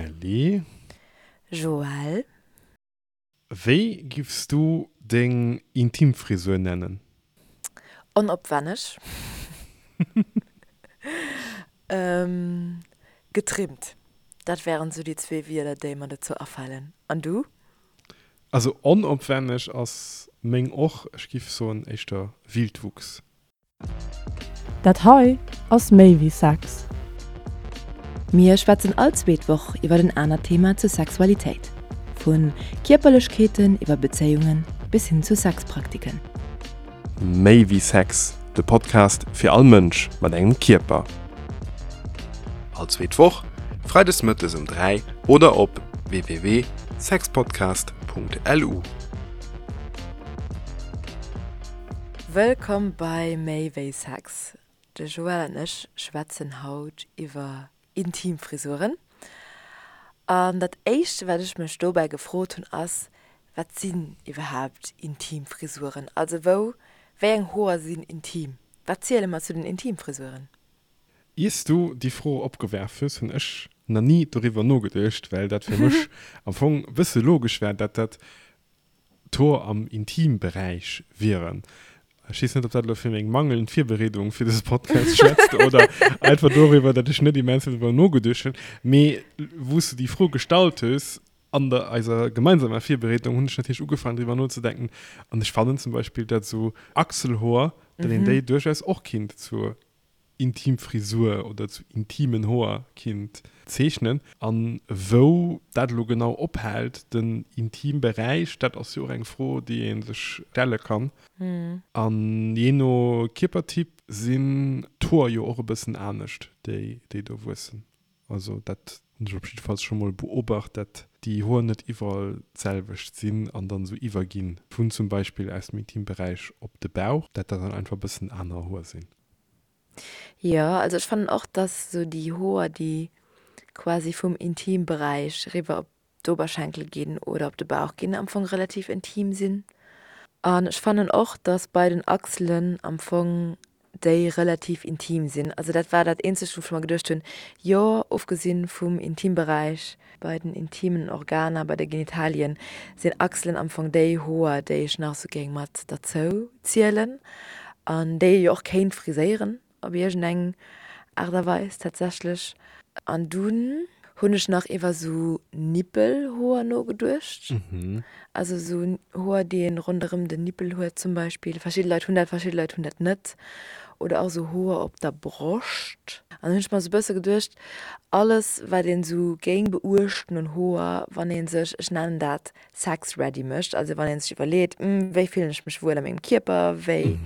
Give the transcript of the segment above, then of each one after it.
Kelly. Joël. Wéi giffs du deng Intimfrisur nennen? Onopwenneg. Getrimmt. Dat wären sou déi zwee Wierder, déi mer dozou afalen. An du? Also onopwenneg ass meng och. Ech giff soen éischter Wildwuchs. Dat hei ass méi wéi Sex. Mir schwätzen all zweet Woch iwwer en anert Thema zur Sexualitéit. Vu Kierperlechkeeten iwwer Bezéiungen bis hin zu Sexpraktiken. Méi wéi Sex, de Podcast fir all Mënsch mat engem Kierper. All zweet Woch, freides mëttes um 3 oder op www.sexpodcast.lu. Wëllkomm bei Méi wéi Sex. De Joël an ech schwätzen haut iwwer intim Frisuren. An dat éischt wat ech mech dobäi gefrot hunn ass, wat sinn iwwerhaapt intim Frisuren? Also wou, wéi eng Hoer sinn intim? Wat ziele mer zu den Intimfrisuren? Iers du déi Fro opgewerf hues, hunn ech na ni doriwwer nogeduecht, well dat fir mech am Fong e bësse logesch war, dat dat D'Hoer am Intimberäich wieren. Ech weess net, ob dat elo fir meng mangelnd Virbereedung fir dëse Podcast schwätzt oder einfach doriwwer, datt ech net immens vill driwwer nogeduecht hunn. Mee wou s du déi Fro gestallt hues, an der eiser gemeinsamer Virbereedung, hunn ech natierlech ugefaangen driwwer nozedenken. An ech fannen zum Beispill, datt esou Achselhoer, datt een déi duerchaus och kinnt zur intim Frisur oder zu intimen Hoer kinnt zeechnen. An wou dat elo genau ophält, den Intimberäich, dat ass jo och eng Fro, déi ee sech stelle kann. An jee no Kierpertyp sinn d'Hoer jo och e bëssen anescht, déi do wuessen. Also dat hunn ech op jiddefalls scho mol beobacht, dat déi Hoer net iwwerall d'selwecht sinn an dann esou iwwerginn vun zum Beispill aus dem Intimberäich op de Bauch, dat dat dann einfach e bëssen aner Hoer sinn. Jo, also ech fannen och, dass esou déi Hoer, déi quasi vum Intimberäich eriwwer op d'Oberschenkel ginn oder op de Bauch ginn, am Fong relativ intim sinn. An ech fannen och, dass bei den Achselen am Fong déi relativ intim sinn. Also dat war dat eenzegt, wou ech mer geduecht hunn, jo, ofgesinn vum Intimberäich, bei den intimen Organer, bei de Genitalien, sinn Achselen am Fong déi Hoer, déi ech nach esou géing mat derzou zielen an déi ee jo och kéint friséieren. Op iergend eng Aart a Weis tatsächlech. An dunn hunn ech nach iwwer sou Nippelhoer nogeduecht. Also sou Hoer, déi een ronderëm den Nippel huet zum Beispill. Verschidde Leit hunn dat, verschidde Leit hunn dat net. Oder och sou Hoer op der Broscht. An dann hunn ech mer sou e bësse geduecht, alles wat een sou géing beuechten un Hoer, wann ee sech, ech nennen dat sex ready mécht, also wann ee sech iwwerleet, wéi fillen ech mech wuel a mengem Kierper, wéi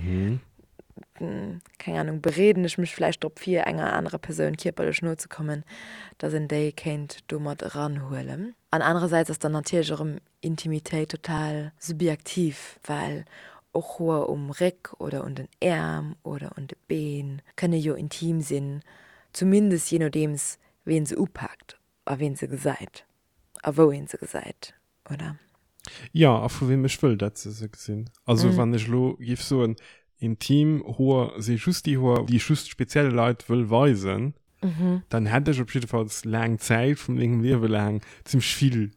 keng Ahnung, bereeden ech mech vläicht drop vir, enger anerer Persoun kierperlech no ze kommen, dass een déi kéint do mat eranhuelen. An anerersäits ass dann natierlech erëm Intimitéit total subjektiv, well och Hoer um Réck oder un den Äerm oder un de Been kënne jo intim sinn, zumindest jee nodeems ween se upaakt a ween se gesäit a wou een se gesäit. oder? Jo, a vu weem ech wëll, dat se se gesinn. Also wann ech elo géif soen, intim Hoer si just déi Hoer, déi ech just spezielle Leit wëll weisen, dann hätt ech op jiddefalls laang Zäit vu mengem Liewe laang zimmlech vill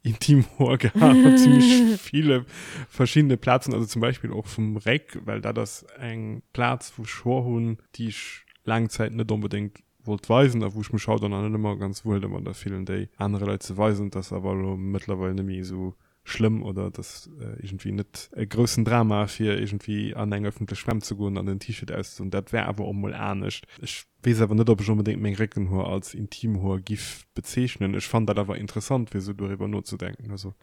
intim Hoer gehat op zimmlech ville verschiddene Plazen, also zum Beispill och vum Réck, well dat ass eng Plaz, wou ech Hoer hunn, déi ech laang Zäit net onbedéngt wollt weisen a wou ech mech haut och nach net ëmmer ganz wuel domadder fillen, déi anere Leit ze weisen. Et ass awer elo mëttlerweil net méi esou schlëmm oder et ass iergendwéi net e groussen Drama, fir iergendwéi an eng ëffentlech Schwämm ze goen an den T-Shirt auszedoen. Dat war awer och mol anescht. Ech weess awer net, ob ech onbedéngt meng Réckenhoer als Intimhoer giff bezeechnen. Ech fannen dat awer interessant, fir esou doriwwer nozedenken. Also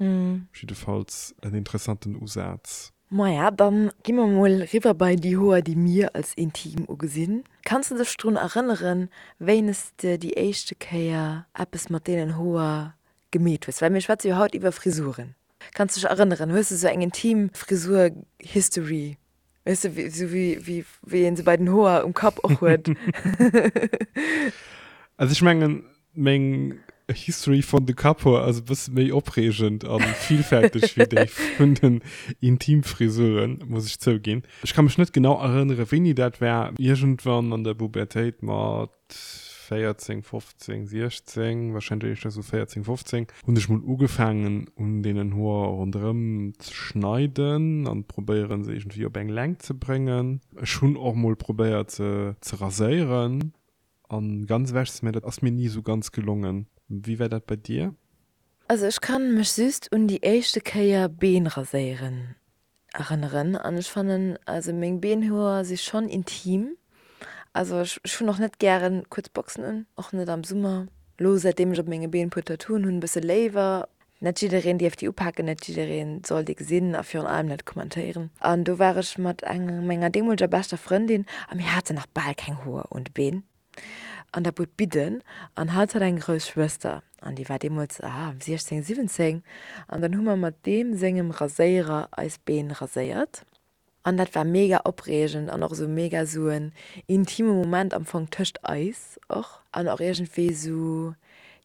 jiddefalls en interessanten Usaz. Maja, dann gi mer mol riwwer bei déi Hoer, déi mir als intim ugesinn. Kanns de dech drun erënneren, wéines de déi éischte Kéier eppes mat deenen Hoer gemeet hues? Well mir schwätze jo haut iwwer Frisuren. Kanns de dech erënneren? Hues de sou eng intim Frisur-History? Weess de, sou wéi wéi een se bei den Hoer um Kapp och huet? Also ech mengen, Meng History vun de Kapphoer ass e bësse méi opreegend a villfälteg wéi déi vun den Intimfrisuren, muss ech zouginn. Ech ka mech net genau erënnere wéini dat war, iergendwann an der Pubertéit mat. 14, 15, 16, warscheinlech éischter esou 14, 15, hunn ech mol ugefaangen un deenen Hoer ronderëm ze schneiden an probéieren se iergendwéi op eng Längt ze bréngen. Ech hunn och mol probéiert se ze raséieren an ganz ewech ze, mä dat ass mir ni esou ganz gelongen. Wéi war dat bei dir? Also ech kann mech just un déi éischte Kéier Been raséieren erënneren an ech fannen also meng Beenhoer si schonn intim. Also ech ech hunn och net gären kuerz Boxen un, och net am Summer. Lo säitdeem ech op menge Been puer Tattooen hunn e bësse léiwer. Net jiddereen dierf déi upaken, net jiddereen soll déi gesinn a virun allem net kommentéieren. An do war ech mat enger menger deemoleger beschter Frëndin a mir haten nach bal keng Hoer un de Been an der Bud Bidden an hatt hat eng grouss Schwëster an déi war deemools, ah, 16, 17 an dann hu mer mat deem sengem Raséierer eis Been raséiert. An dat war mega opreegend an och esou mega esou en intime Moment am Fong tëscht eis och. An och iergendwéi esou,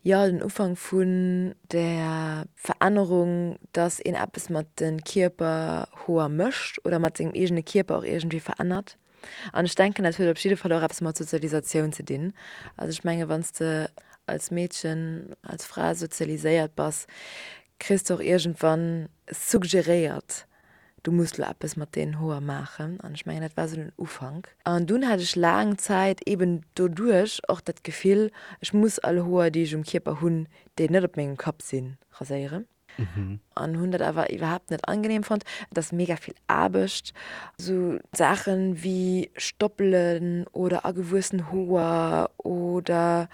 jo, den Ufank vun der Verännerung, dass een eppes mat de Kierperhoer mécht oder mat sengem eegene Kierper och iergendwéi verännert. An ech denken, dat huet op jidde Fall och eppes mat Sozialisatioun ze dinn. Also ech menge wann s de als Meedchen, als Fra sozialiséiert bass, kriss de och iergendwann suggeréiert, du muss lo eppes mat deenen Hoer maachen. An ech mengen, dat war esou den Ufank. An dunn hat ech laang Zäit eben doduerch och dat Gefill, ech muss all Hoer, déi ech um Kierper hunn, déi net op mengem Kapp sinn, raséieren. An hunn dat awer iwwerhaapt net angenehm fonnt. Et ass mega vill Aarbecht. Esou Saachen wéi Stoppelen oder agewuessen Hoer oder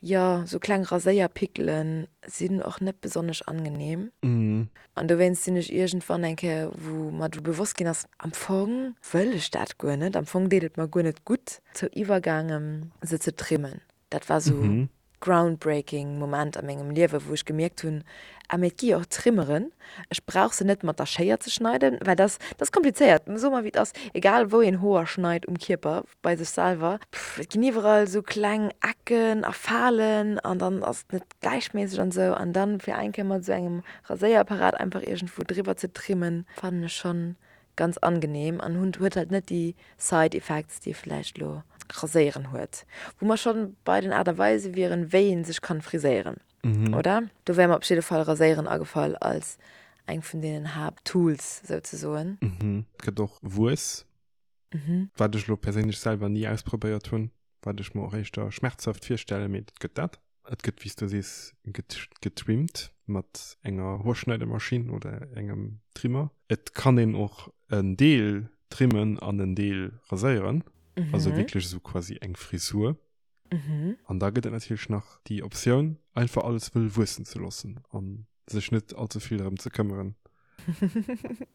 jo, esou kleng Raséierpickelen sinn och net besonnesch angenehm. An dowéinst sinn ech iergendwann eng Kéier, wou mer du bewosst ginn ass, am Fong wëll ech dat guer net, am Fong deet et mer guer net gutt, zou iwwergaangen, se ze trimmen. Dat war sou groundbreaking Moment a mengem Liewe, wou ech gemierkt hunn, ah mee et gi jo och Trimmeren, ech brauch se net mat der Schéier ze schneiden, well dat ass komplizéiert, soe mer wéi et ass, egal wou een Hoer schneit um Kierper, bei sech selwer, et ginn iwwerall sou kleng Ecken a Falen an dann ass et net gläichméisseg an sou an dann fir eng Kéier mat sou engem Raséierapparat einfach iergendwou driwwer ze trimmen, fannen ech schonn ganz angenehm an hunn huet halt net déi Side Effects déi vläicht lo Raséieren huet. Wou mer schonn bei den Aart a Weise wieren wéi een sech kann friséieren, oder? Do wär mer op jidde Fall Raséieren agefall als eng vun deenen Haapttools souzesoen. Et gëtt och Wuess. Wat ech elo perséinlech selwer ni ausprobéiert hunn, wat ech mer och éischter schmerzhaft virstellen, mee et gëtt dat. Et gëtt, wéi s du sees, getrimmt mat enger Hoerschneidemaschinn oder engem Trimmer. Et kann een och en Deel trimmen an en Deel raséieren, also wierklech esou quasi eng Frisur. An da gëtt et natierlech nach déi Optioun, einfach alles wëll wuessen ze loossen an sech net allze vill drëm ze këmmeren.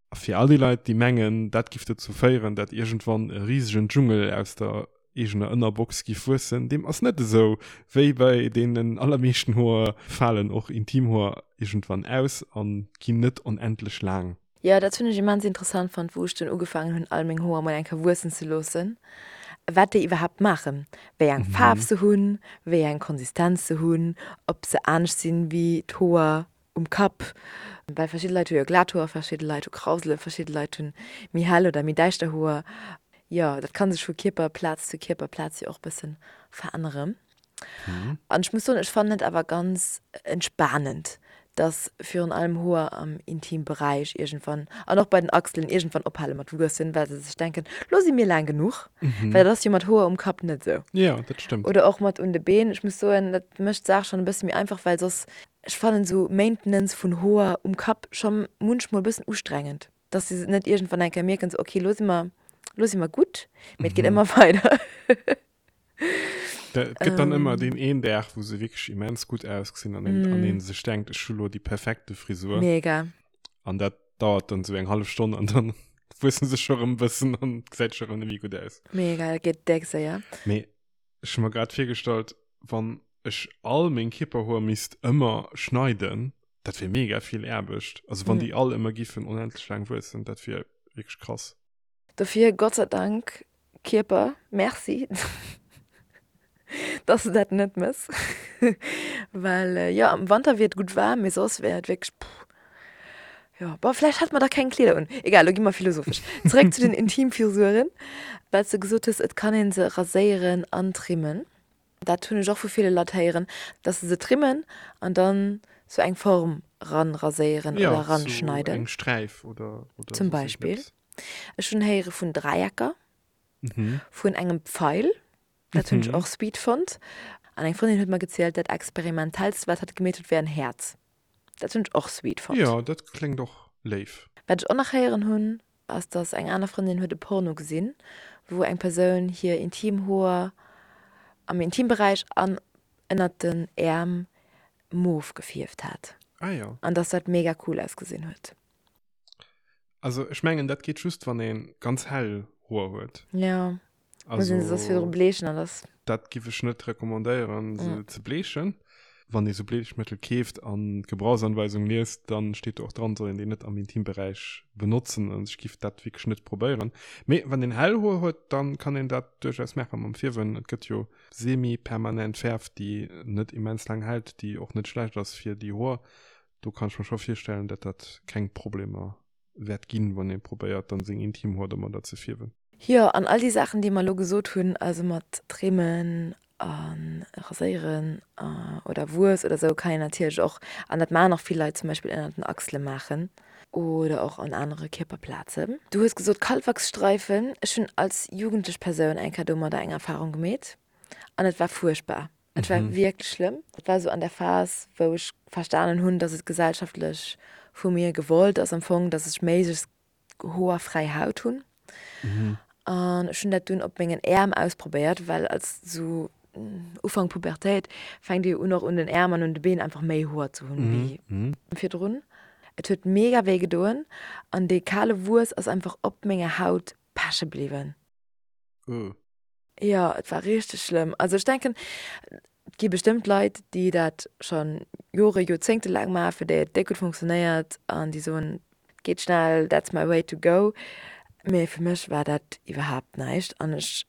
A fir all déi Leit, déi mengen, dat giff dozou féieren, dat iergendwann e risegen Dschungel aus der eegener Ënnerbox giff wuessen, deem ass net esou. Wéi bei deenen allermeeschten Hoer falen och Intimhoer iergendwann aus a ginn net onendlech laang. Jo, dat hunn ech immens interessant fonnt, wou ech dunn ugefaangen hunn, all meng Hoer mol eng Kéier wuessen ze loossen, wat déi iwwerhaapt maachen, wéi eng Faarf se hunn, wéi eng Konsistenz se hunn, ob se anescht sinn wéi d'Hoer um Kapp, well verschidde Leit hu jo glat Hoer, verschidde Leit hu Krauselen, verschidde Leit hunn méi hell oder méi däischter Hoer. Jo, dat ka sech vu Kierperplaz zu Kierperplaz jo och bëssen veränneren. An ech muss soen, ech fannen et awer ganz entspanend, dass virun allem Hoer am Intimberäich iergendwann, an och bei den Achselen, iergendwann ophale mat wuessen, well se sech denken, lo si mir laang genuch. Well dat ass jo mat Hoer um Kapp net esou. Jo, dat stëmmt. Oder och mat un de Been. Ech muss soen, dat mécht d'Saach schonn e bësse méi einfach, well soss, ech fannen esou Maintenance vun Hoer um Kapp scho munchmol e bëssen ustrengend. Dass se net iergendwann eng Kéier mierken, sou, okay, lo si mer, lo si mer gutt, mee et geet ëmmer weider. Et gëtt dann ëmmer deen een Dag, wou se wierklech immens gutt ausgesinn an een, an een sech denkt, ech hu lo déi perfekte Frisur. Mega. An dat dauert dann sou eng hallef Stonn an dann wuessen se scho rëm e bëssen an gesäit scho rëm net méi gutt aus. Mega, dat geet déck séier. Mee ech hu mer grad virgestallt, wann ech all meng Kierperhoer misst ëmmer schneiden, dat wier mega vill Aarbecht. Also wann déi all ëmmer giffen onendlech laang wuessen, dat wier wierklech krass. Dofir Gott sei Dank Kierper, merci dass de dat net mëss, well jo am Wanter wier et gutt waarm, mee soss wär et wierklech puh. Jo, bon vläicht hätte mer da keng Kleeder un. Egal, lo gi mer philosophesch. Zeréck zu den Intimfrisuren, well s de gesot hues, et kann ee se raséieren an trimmen. Dat hunn ech och vu ville Leit héieren, dass se se trimmen an dann sou eng Form ran raséieren oder Ja, sou ranschneiden. eng Sträif oder, oder Zum soss Beispill. iergendeppes. Ech hunn héiere vun Dräiecker, Mhm. vun engem Pfeil, dat hunn ech Mhm. och sweet fonnt. An eng Frëndin huet mer gezielt, dat experimentellst, wat hatt gemeet huet, wär en Häerz. Dat hunn ech och sweet fonnt. Jo, dat kléngt och léif. Wat ech och nach héieren hunn, ass dass eng aner Frëndin huet e Porno gesinn, wou eng Persoun hir intim Hoer am Intimberäich an ënnert den Äerm mof gefierft hat. Ah jo. An dass dat mega cool ausgesinn huet. Also ech mengen dat geet just wann ee ganz hell Hoer huet. Jo, muss een se soss virdru bleechen an dass. Dat giff ech net recommandéieren se ze bleechen. Wann ee sou Bleechmëttel keeft an d'Gebrauchsanweisung liest, dann steet do och dran, soll een déi net am Intimberäich benotzen. Also ech giff dat wierklech net probéieren. Mee wann een hell Hoer huet, dann kann een dat duerchaus maachen mam Fierwen. Et gëtt jo semi-permanent Fäerf déi net immens laang hält, déi och net schlecht ass fir déi Hoer. Do kann ech mer scho virstellen, dat dat keng Problemer wäert ginn, wann ee probéiert dann seng Intimhoer domadder ze fierwen. Jo, an all déi Saachen, déi mer elo gesot hunn, also mat Trimmen a Raséieren oder Wuess oder esou, kann een natierlech och, an dat maachen och vill Leit, zum Beispill ënnert den Achsele maachen oder och an anere Kierperplazen. Du hues gesot Kalwachsstreifen. Ech hunn als jugendlech Persoun eng Kéier domadder eng Erfarung gemeet an et war fuerchtbar. Et war wierklech schlëmm. Et war esou an der Phas, wou ech verstanen hunn, dass et gesellschaftlech vu mir gewollt ass am Fong, dass ech méiglechst hoerfräi Haut hunn. An ech hunn dat dunn op mengen Äerm ausprobéiert, well als sou Ufank Pubertéit fänkt ee jo un och un den Äerm an un de Been einfach méi Hoer ze hunn wéi virdrun. Et huet mega wéi gedoen an dee kale Wuess ass einfach op menger Haut peche bliwwen. Jo, et war richteg schlëmm. Also ech denken, et gi bestëmmt Leit, déi dat scho Jore, Joerzéngte laang maachen, fir déi et déck gutt funktionéiert an déi soen, et geet schnell, that's my way to go. Mee fir mech war dat iwwerhaapt näischt an ech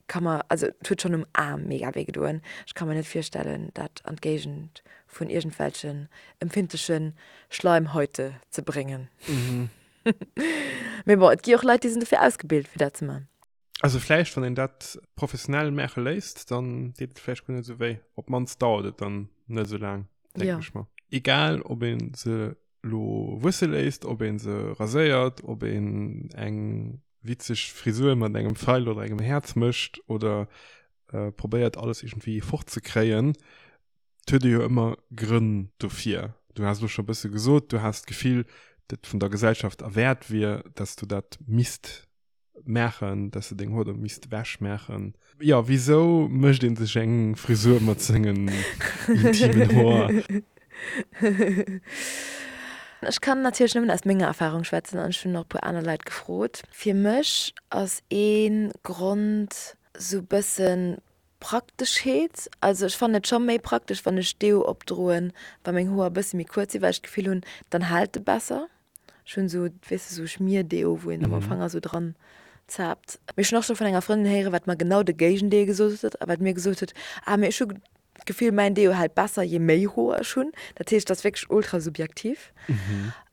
ka mer, also et huet schonn um Aarm mega wéi gedoen, ech ka mer net virstellen, dat an d'Géigend vun iergendwelchen empfindleche Schleimhäute ze bréngen. Mee bon, et gi och Leit, déi sinn dofir ausgebilt, fir dat ze man. Also vläicht, wann een dat professionell maache léisst, dann deet et vläicht guer net esou wéi. Op d'mannst dauert et dann net esou laang, denken Ja. ech mer. Egal, ob ee se lo wuesse léisst, ob ee se raséiert, ob een eng witzeg Frisur mat engem Pfeil oder engem Häerz mécht oder probéiert alles iergendwéi fortzekréien, et huet ee jo ëmmer Grënn dofir. Du has elo scho e bësse gesot, du has d'Gefill, dat vun der Gesellschaft erwäert wier, dass du dat misst maachen, dass de deng Hoer do misst ewech maachen. Jo, wisou mécht een sech eng Frisur mat sengen intimen Hoer? Ech kann natierlech nëmmen aus menger Erfarung schwätzen an ech hunn och e puer aner Leit gefrot. Fir mech ass ee Grond sou bëssen Prakteschheet. Also ech fannen et scho méi praktesch wann ech Deo opdroen, wa meng Hoer e bësse méi kuerz sinn, well ech d'Gefill hunn, dann hält e besser. Ech hunn esou, weess de, esou Schmierdeo, wou een da mam Fanger esou dran zaapt. Mee ech hunn och scho vun enger Frëndin héieren, wat mer genau de Géigendeel gesot huet a wat mir gesot huet, Ah, mee ech hu d'Gefill, mäin Deo hält besser, je méi Hoer ech hunn. Dat heescht, dat ass wierklech ultra subjektiv.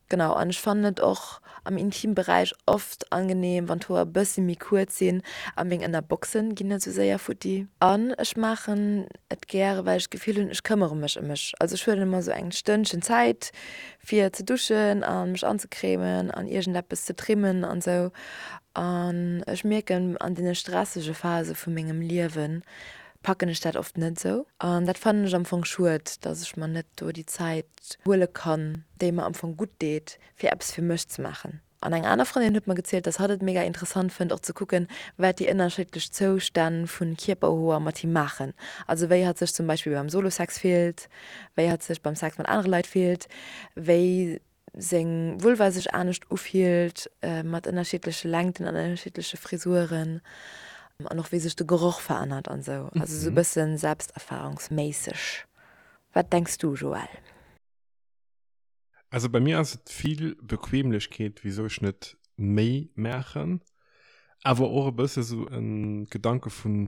Genau, an ech fannen et och am Intimberäich oft angenehm, wann d'Hoer e bëssi méi kuerz sinn a meng Ënnerboxen ginn net esou séier futti. An ech maachen et gäre, well ech d'Gefill hunn, ech këmmere mech ëm mech. Also ech huelen ëmmer esou eng Stënnchen Zäit, fir ze duschen a mech anzecremen an iergendeppes ze trimmen an sou. An ech mierken, an deene stressege Phase vu mengem Liewe packen ech dat oft net sou. An dat fannen ech am Fong schued, dass ech mer net do déi Zäit huele kann, déi mer am Fong gutt deet, fir eppes fir mech ze maachen. An eng aner Frëndin huet mer gezielt, dass hatt et mega interessant fënnt och ze kucken, wat déi ënnerschiddlech Zoustänn vu Kierperhoer mat him maachen. Also wéi hatt sech zum Beispill beim Solo-Sex fillt, wéi hatt sech beim Sex mat anere Leit fillt, wéi seng Vulva sech anescht ufillt mat ënnerschiddleche Längten an ënnerschiddleche Frisuren an och wéi sech de Geroch verännert an esou. Also esou e bësse selbsterfahrungsméisseg. Wat denks du, Joël? Also bei mir ass et vill Bequemlechkeet, wisou ech net méi maachen, awer och e bësse sou e Gedanke vun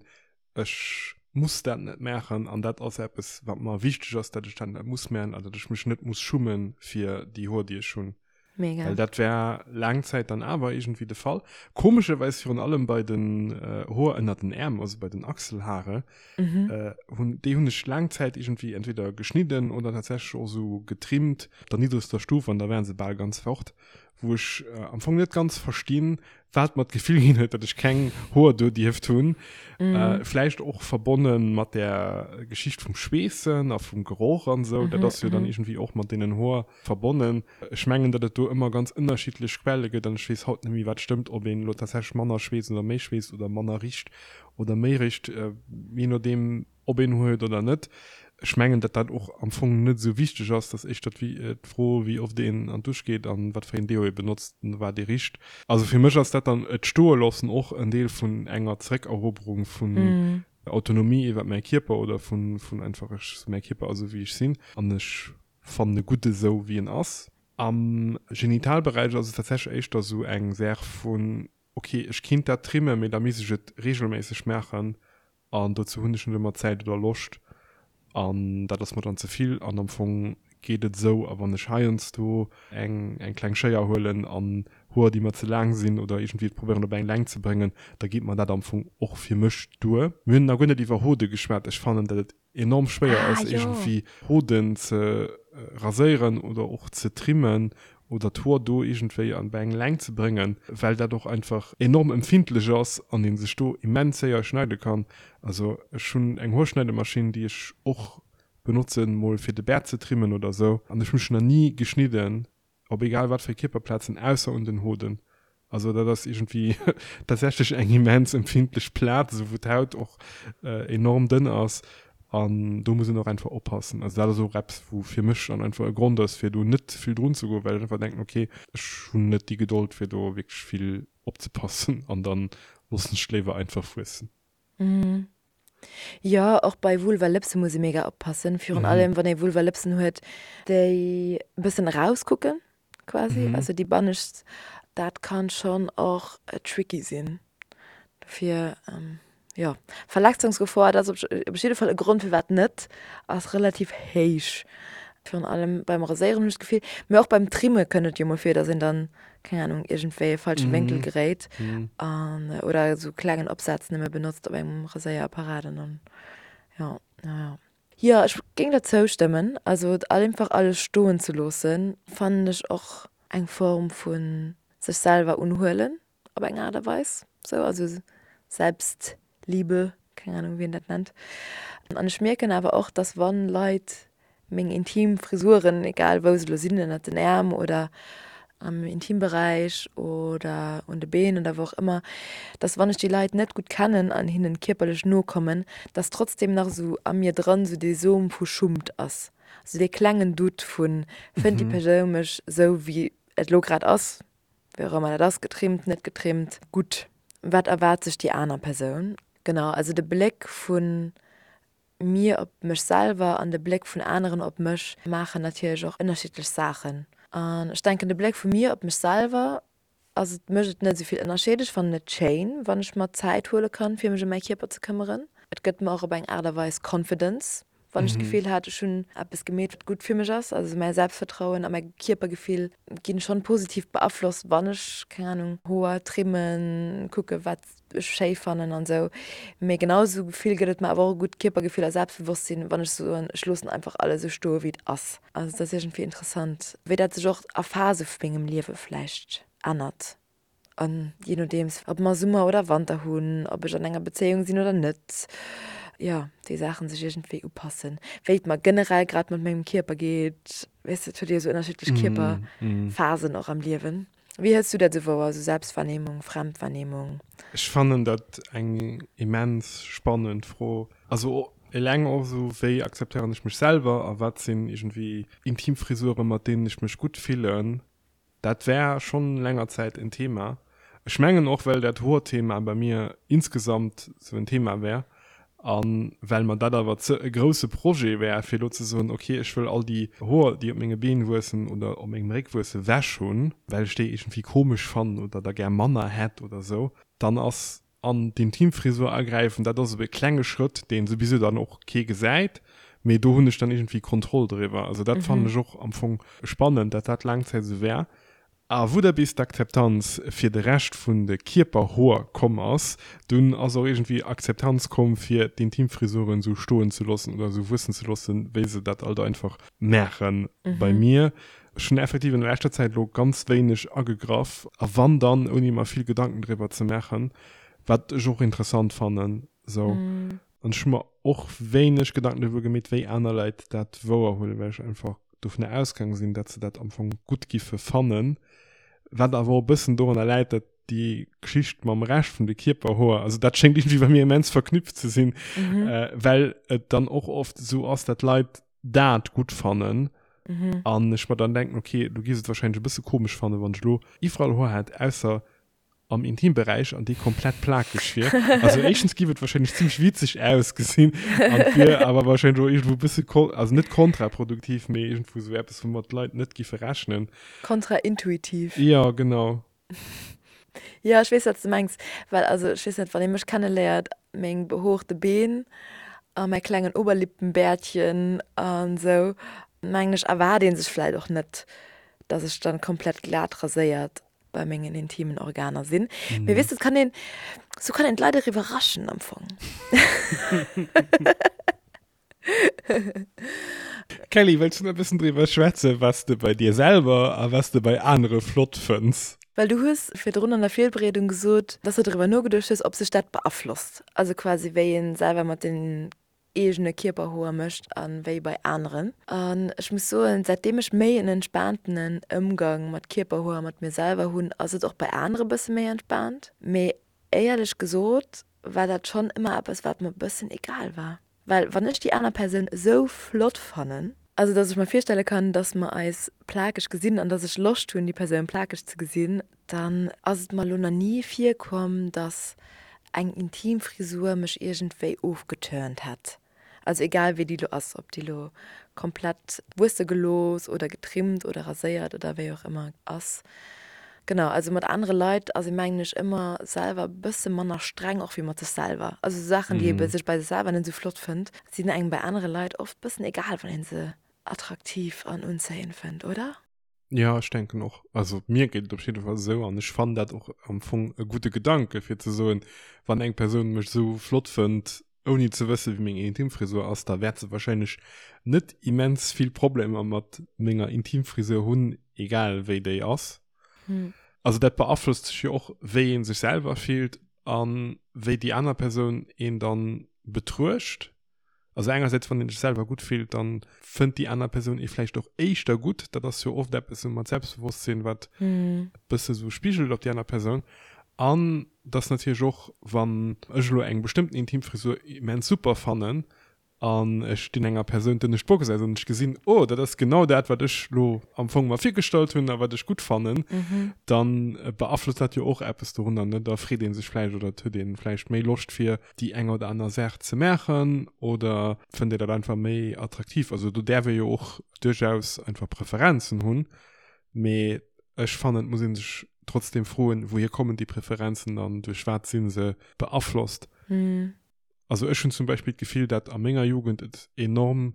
ech muss dat net maachen an dat ass eppes wat mer wichteg ass, dat ech dat net muss maachen an dat ech mech net muss schummen fir déi Hoer déi ech hunn. Mega. Well dat war laang Zäit dann awer iergendwéi de Fall. Komescherweis virun allem bei den Hoer ënner den Äerm, also bei den Achselhaare, hunn, déi hunn ech laang Zäit iergendwéi entweder geschnidden oder tatsächlech och esou getrimmt, op der niddregster Stuf an da waren se bal ganz fort, wou ech am Fong net ganz verstinn, wat mer d'Gefill ginn huet, datt ech keng Hoer do dierft hunn. Vläicht och verbonne mat där Geschicht vum Schweessen a vum Geroch an esou. Dat ass jo dann iergendwéi och mat deenen Hoer verbonnen. Ech mengen, datt et do ëmmer ganz ënnerschiddlech Quelle gëtt an ech weess haut net méi, wat stëmmt, ob een elo tatsächlech manner schweesst oder méi schweesst oder manner richt oder méi richt, jee nodeem ob een Hoer huet oder net. Ech mengen, datt dat och am Fong net esou wichteg ass. Dat ass éischter d'Fro, wéi oft een an d'Dusch geet an wat fir een Deo ee benotzt an wat ee richt. Also fir mech ass dat dann, et stoe loossen, och en Deel vun enger Zeréckeroberung vun Autonomie iwwer mäi Kierper oder vun einfach ech, mäi Kierper ass esou wéi ech sinn an ech fannen e gutt esou wéi en ass. Am Genitalberäich ass et tatsächlech éischter esou eng Saach vun, ok ech kinnt dat trimmen, mee da misst ech et regelméisseg maachen an dozou hunn ech net ëmmer Zäit oder Loscht an dat ass mer dann ze vill an am Fong geet et esou. A wann ech heiansdo eng eng kleng Schéier huelen an Hoer déi mer ze laang sinn oder iergendwéi et probéieren op eng Längt ze bréngen, da geet mer dat am Fong och fir mech duer. Mir hunn nach guer net iwwer Hode geschwat. Ech fannen dat et enorm schwéier ass iergendwéi Hoden ze raséieren oder och ze trimmen oder d'Hoer do iergendwéi an bei eng Längt ze bréngen, well dat och einfach enorm empfindlech ass an ee sech do immens séier schneide kann. Also ech hunn eng Hoerschneidemaschinn, déi ech och benotzen mol fir de Bäert ze trimmen oder sou an ech hu mech nach ni geschnidden Op egal wat fir Kierperplazen, ausser un den Hoden. Also dat ass iergendwéi tatsächlech eng immens empfindlech Plaz, esou wou d'Haut och enorm dënn ass an do muss een och einfach oppassen. Also dat ass och eppes, wou fir mech dann einfach e Grond ass, fir do net ze vill drun ze goen, well ech einfach denken, okay, ech hunn net déi Gedold fir do wierklech vill opzepassen an dann loossen ech et léiwer einfach wuessen. Jo, och bei Vulvalëpse muss ee mega oppassen, virun allem wann ee Vulvalëpsen huet, déi e bëssen erauskucken quasi, also déi bannescht, dat kann schonn och tricky sinn. Dofir jo, Verletzungsgefor, dat ass op jidde Fall e Grond firwat net, ass relativ héich. Virun allem beim Raséieren hunn ech d'Gefill, mee och beim Trimme kënnt et jo mol vir, dass een dann, keng Ahnung, iergendwéi e falsche Wénkel geréit an oder esou klengen Opsaz nëmme benotzt op engem Raséierapparat an dann, jo, jo, jo. Jo, ech géing der zoustëmmen. Also et einfach alles stoen ze loossen, fannen ech och eng Form vu sech selwer unhuelen op eng Aart a Weis, sou, also Selbstliebe, keng Ahnung wéi een dat nennt. An ech mierken awer och, dass wann Leit meng intim Frisuren, egal wou se elo sinn, ënnert den Äerm oder am Intimberäich oder un de Been oder wou och ëmmer, dass wann ech déi Leit net gutt kennen an hinnen kierperlech no kommen, dass trotzdem nach esou a mir dran esou dee Som vu Schummt ass, esou dee klengen Doute vun, fënnt déi Persoun mech esou wéi et elo grad ass, wéi och ëmmer dat ass, getrimmt, net getrimmt, gutt, wat erwaart sech déi aner Persoun? Genau, also de Bléck vu mir op mech selwer an de Bléck vun aneren op mech maachen natierlech och ënnerschiddlech Saachen. An ech denken, de Bléck vu mir op mech selwer ass, et mécht et net esou vill Ënnerscheed. Ech fannen et schéin, wann ech mer Zäit huele kann, fir mech ëm mäi Kierper ze këmmeren. Et gëtt mer och op eng Aart a Weis Confidence, wann ech d'Gefill hat, ech hunn eppes gemeet, wat gutt fir mech ass. Also mäi Selbstvertrauen a mäi Kierpergefill ginn schonn positiv beaflosst, wann ech, keng Ahnung, Hoer trimmen, kucke wat ech schéi fannen an esou. Mee genau esou Gefill gëtt et mer awer och e gutt Kierpergefill a Selbstbewosstsinn, wann ech soen, ech loossen einfach alles esou stoe wéi et ass. Also et ass iergendwéi interessant, wéi dat sech och a Phase vu mengem Liewe vläicht ännert. An jee nodeems, ob mer Summer oder Wanter hunn, ob ech an enger Bezéiung sinn oder net, jo, déi Saachen sech iergendwéi upassen. Wéi et mer generell grad mat mengem Kierper geet, weess de, et huet ee jo esou ënnerschiddlech Kierperphasen och am Liewen. Wéi hëls du dat esou wouer, esou Selbstwahrnehmung, Fremdwahrnehmung? Ech fannen dat eng immens spannend Fro. Also eleng och esou, wéi akzeptéieren ech mech selwer a wat sinn iergendwéi intim Frisuren, mat deenen ech mech gutt fillen. Dat war schonn länger Zäit en Thema. Ech mengen och, well dat Hoerthema bei mir insgesamt sou en Thema war a well mer dat awer ze e grousse Projet war, fir elo ze soen, okay, ech wëll all déi Hoer, déi op menge Been wuessen oder op mengem Réck wuessen, wech hunn, well ech déi iergendwéi komesch fannen oder der gär manner hätt oder sou, dann ass an d'Intimfrisur agräifen, dat ass e klenge Schrëtt, deen souwisou dann och kee gesäit, mee do hunn ech dann iergendwéi Kontroll driwwer. Also dat fannen ech och am Fong spannend, dat dat laang Zäit esou war. A wou da bis d'Akzeptanz fir de Rescht vun de Kierperhoer komm ass, dunn ass och iergendwéi Akzeptanz komm fir d'Intimfrisuren esou stoen ze loossen oder esou wuessen ze loossen, wéi se dat alt einfach maachen. Bei mir, ech hunn effektiv an der leschter Zäit elo ganz wéineg agegraff, a wann dann ouni mer vill Gedanken driwwer ze maachen, wat ech och interessant fannen esou. An ech hu mer och wéineg Gedanken driwwer gemeet, wéi aner Leit dat wouerhuelen, well ech einfach dovunner ausgaange sinn, datt se dat am Fong gutt giffe fannen. Wat awer och e bëssen dorunner läit, datt déi Geschicht mam Rescht vun de Kierperhoer, also dat schéngt iergendwéi bei mir immens verknüpft ze sinn, well et dann och oft esou ass, datt Leit dat gutt fannen an ech mer dann denken, okay, du giffs et wahrscheinlech e bësse komesch fannen, wann ech elo iwwerall Hoer hätt, ausser am Intimberäich an déi komplett plakeg wier. Also éischtens giff et wahrscheinlech zimmlech witzeg ausgesinn an et wier awer wahrscheinlech och iergendwou e bësse kon-, also net kontraproduktiv, mee iergendwou esou eppes, woumat d'Leit net giffe rechnen. Kontraintuitiv. Jo, genau. Jo, ech weess, wat s de mengs. Well also ech weess net, wann ee mech kenneléiert, meng behoorte Been a mäi klengen Oberlippenbärtchen an esou, mengen ech, erwaart ee sech vläicht och net, dass ech dann komplett glat raséiert bei mengen intimen Organer sinn. Mm. Mee weess du, kann een, sou kann een d'Leit och iwwerraschen am Fong. Kelly, wëlls du nach e bëssen driwwer schwätzen, was de bei dir selwer a was de bei anere flott fënns? Well du hues virdrun an der Virbereedung gesot, dass du driwwer nogeduecht hues, ob sech dat beaflosst, also quasi wéi ee selwer mat den eegene Kierperhoer mécht a wéi bei aneren. An ech muss soen, säitdeem ech méi en entspaantenen Ëmgang mat Kierperhoer a mat mir selwer hunn, ass et och bei anere bësse méi entspaant. Mee éierlech gesot war dat schonn ëmmer eppes, wat mer bëssen egal war. Well wann ech déi aner Persoun esou flott fannen, also dass ech mer virstelle kann, dass mer eis plakeg gesinn an dass ech Loscht hunn, déi Persoun plakeg ze gesinn, Dann ass et mer lo na ni virkomm, dass eng intim Frisur mech iergendwéi ofgeturnt hätt. Also egal wéi déi lo ass, ob déi lo komplett wuesse gelooss oder getrimmt oder raséiert oder wéi och ëmmer ass. Genau, also mat anere Leit ass ee mengen ech ëmmer selwer e bësse manner streng och wéi mat sech selwer. Also Saachen déi ee sech bei sech selwer net esou flott fënnt, sinn engem bei anere Leit oft bëssen egal wann ee se attraktiv an unzéiend fënnt, oder? Ja, ech denken och. Also mir geet et op jidde Fall esou an ech fannen dat och am Fong e gudde Gedanke fir ze soen, wann eng Persoun mech esou flott fënnt, ouni ze wësse wéi meng Intimfrisur ass, da wäert se wahrscheinlech net immens vill Problemer mat menger Intimfrisur hunn, egal wéi déi ass. Also dat beaflosst sech jo och, wéi ee sech selwer fillt a wéi déi aner Persoun een dann betruecht. Also engersäits, wann een sech selwer gutt fillt, dann fënnt déi aner Persoun ee vläicht och éischter gutt. Dat ass jo oft eppes esou mat Selbstbewosstsinn, wat e bësse sou spigelt op déi aner Persoun. An dass natierlech och, wann ech elo eng bestëmmten Intimfrisur immens super fannen an ech dinn enger Persoun d'ënnescht Box aus an ech gesinn, oh, dat ass genau dat, wat ech elo am Fong mer virgestallt hunn a wat ech gutt fannen, dann beaflosst dat jo och eppes dorunner, ne? Da freet ee sech vläicht oder et huet ee vläicht méi Loscht fir déi eng oder aner Saach ze maachen oder fënnt Dir dat einfach méi attraktiv? Also do däerf ee jo och duerchaus einfach Preferenzen hunn, mee ech fannen et muss ee sech trotzdem froen, wouhier kommen déi Preferenzen an duerch wat si se beaflosst? Also ech hunn zum Beispill d'Gefill, dat a menger Jugend et enorm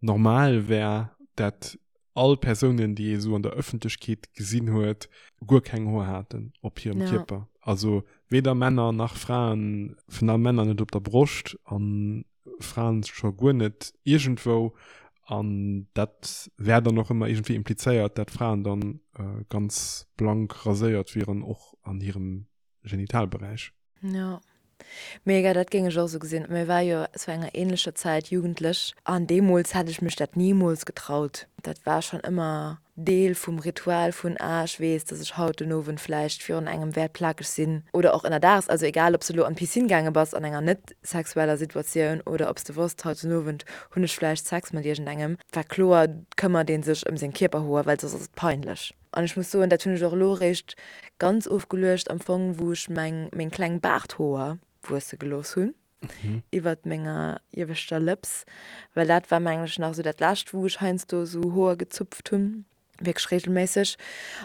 normal wär, dat all Persounen, déi ee sou an der Ëffentlechkeet gesinn huet, guer keng Hoer haten op hirem ja. Kierper. Also weder Männer nach Fraen, vun allem Männer net op der Broscht an Fraen scho guer net iergendwou. An dat wär dann och ëmmer iergendwéi implizéiert, dat Fraen dann äh, ganz blank raséiert wieren, och an hirem Genitalberäich. Jo. Mega, dat géing ech och esou gesinn. Mir war jo zu enger ähnlecher Zäit jugendlech an deemools hätt ech mech dat nimools getraut. Dat war schonn ëmmer Deel vum Ritual vun, ah ech weess, dass ech haut den Owend vläicht virun engem wäert plakeg sinn oder och ënnerdaags, also egal ob s de elo an d'Piscine gaange bass an enger net sexueller Situatioun oder ob s de wosst, haut den Owend hunn ech vläicht Sex mat iergendengem, war kloer, këmmert ee sech ëm seng Kierperhoer, well soss ass et peinlech. An ech muss soen, dat hunn ech och elo eréischt ganz ofgeluecht am Fong, wou ech meng meng kleng Baarthoer wuesse gelooss hunn iwwert menger ieweschter Lëps, well dat war mengen ech nach esou dat lescht, wou ech heiansdo esou Hoer gezupft hunn, wierklech reegelméisseg.